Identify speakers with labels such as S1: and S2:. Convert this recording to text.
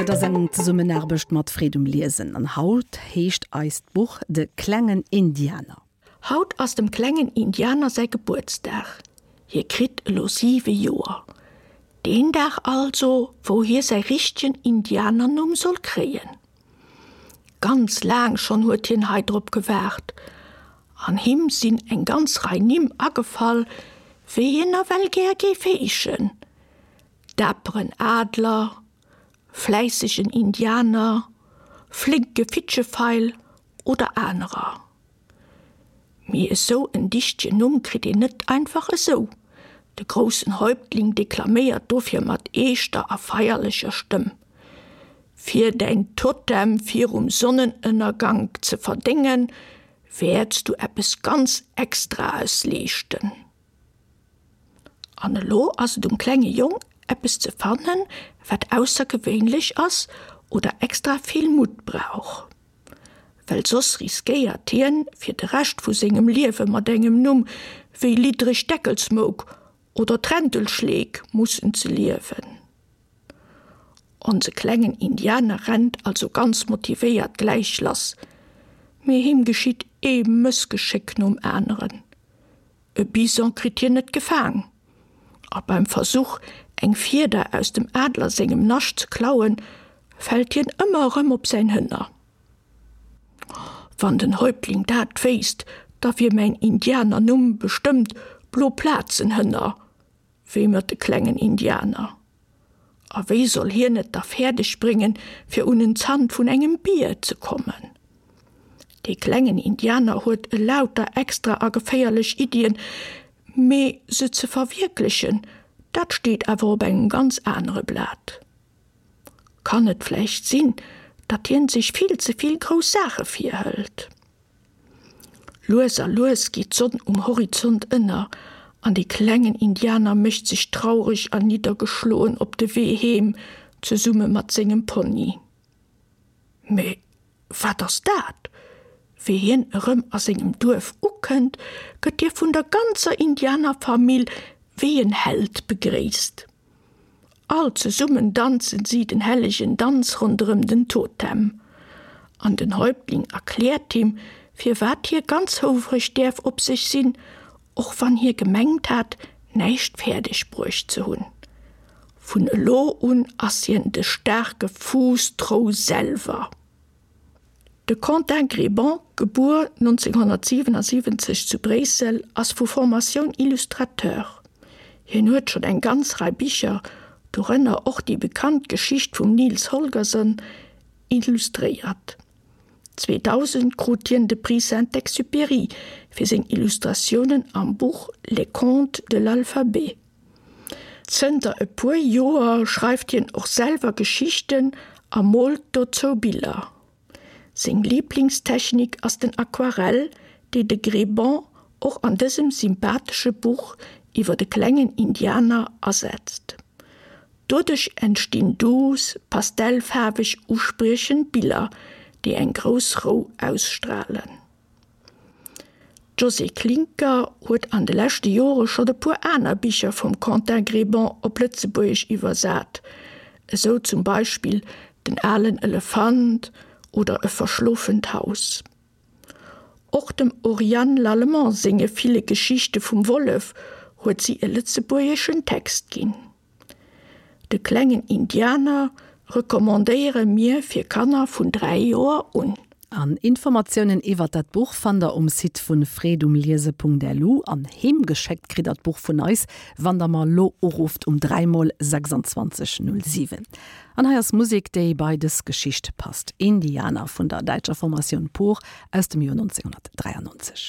S1: Dat ass eng Zesummenaarbecht mat Freed um Liesen an haut heescht eist Buch De klengen Indianer.
S2: Haut ass dem klengen Indianer säi Gebuertsdag. Hie kritt elo siwe Joer. Deen Dag also, wou hie säi richtegen Indianernumm soll kréien. Ganz laang schonn huet hien hei drop gewaart. An him sinn eng ganz Rei Nimm agefall, wéi hien nawell gär géif heeschen, Daperen Adler, fläissegen Indianer, flénke Fitschefeil oder anerer. Mee esou en dichtegen Numm kritt een net einfach esou. De groussen Häuptling deklaméiert dofir mat eeschter a feierlecher Stëmm, Fir däin Totem virum Sonnenënnergank ze verdéngen, wäerts du eppes ganz Extraes leeschten. An elo ass et um klenge Jong, eppes ze fannen, wat aussergewéinlech ass oder extra vill Mutt brauch. Well soss riskéiert hien, fir de Rescht vu sengem Liewe mat engem Numm wéi Liddreg Deckelsmouk oder Trentelschleek mussen ze liewen. Onse klengen Indianer rennt also ganz motivéiert gläich lass, mee him geschitt ee Mëssgeschéck nom aneren. E Bison kritt hien net gefaang, a beim Versuch, eng Fieder aus dem Adler sengem Nascht ze klauen, fält hien ëmmer erëm op säin Hënner. Wann den Häuptling dat wéisst, da wier mäin Indianernumm bestëmmt Bloplazenhënner, wéimert de klengen Indianer. A wéi soll hien et da fäerdeg bréngen, fir un en Zant vun engem Bier ze kommen? Dee klengen Indianer huet elauter extra a geféierlech Iddien, mee se ze verwierklechen, dat steet awer op engem ganz anere Blat. Kann et vläicht sinn, datt hien sech vill ze vill grouss Saache virhëlt? Lues a lues geet d'Sonn um Horizont ënner an de klengen Indianer mécht sech traureg an niddergeschloen op de Wee heem, zesumme mat sengem Pony. Mee wat ass dat? Wéi hien erëm a sengem Duerf ukënnt, gëtt hie vun der ganzer Indianerfamill wéi en Held begréisst. All zesummen danzen si den hellegen Danz ronderëm den Totem. An den Häuptling erkläert him, firwat hie ganz houfreg däerf op sech sinn, och wann hie gemengt hat, näischt fäerdeg bruecht ze hunn. Vun elo un ass hien de staarke Fuuss-Trou selwer. De Quentin Grebant, gebuer 1977 zu Bréissel, ass vu Formatioun Illustrateur. Hien huet schonn eng ganz Rei Bicher, dorënner och déi bekannt Geschicht vum Nils Holgersson, illustréiert. 2000 krut hien de Prix Saint-Exupéry fir seng Illustratiounen am Buch Les contes de l'alphabet. Zënter e puer Joer schreift hien och selwer Geschichten a moolt dozou Biller. Seng Liblingstechnik ass den Aquarell, déi de Grebant och an dësem sympathesche Buch iwwer de klengen Indianer asetzt. Doduerch entstinn duuss, pastellfaarweg uspriechend Biller, déi eng grouss Rou ausstralen. D'Josée Klincker huet an de leschte Jore schonn e puer aner Bicher vum Quentin Grebant op Lëtzebuergesch iwwersat, esou zum Beispill Den alen Elefant oder E verschlofent Haus. Och dem Oriane Lallemand senge ville Geschichte vum Wollef huet si e lëtzebuergeschen Text ginn. De klengen Indianer recommandéiere mir fir Kanner vun 3 Joer un.
S1: An Informatiounen iwwert dat Buch fannt der um Site vun freedumliese.lu an heem geschéckt kritt der d'Buch vun eis, wann der mer lo urufft um 3 mol 26 07. An hei ass Musek, déi bei dës Geschicht passt, Indianer vun der däitscher Formatioun Pur aus dem Joer 1993.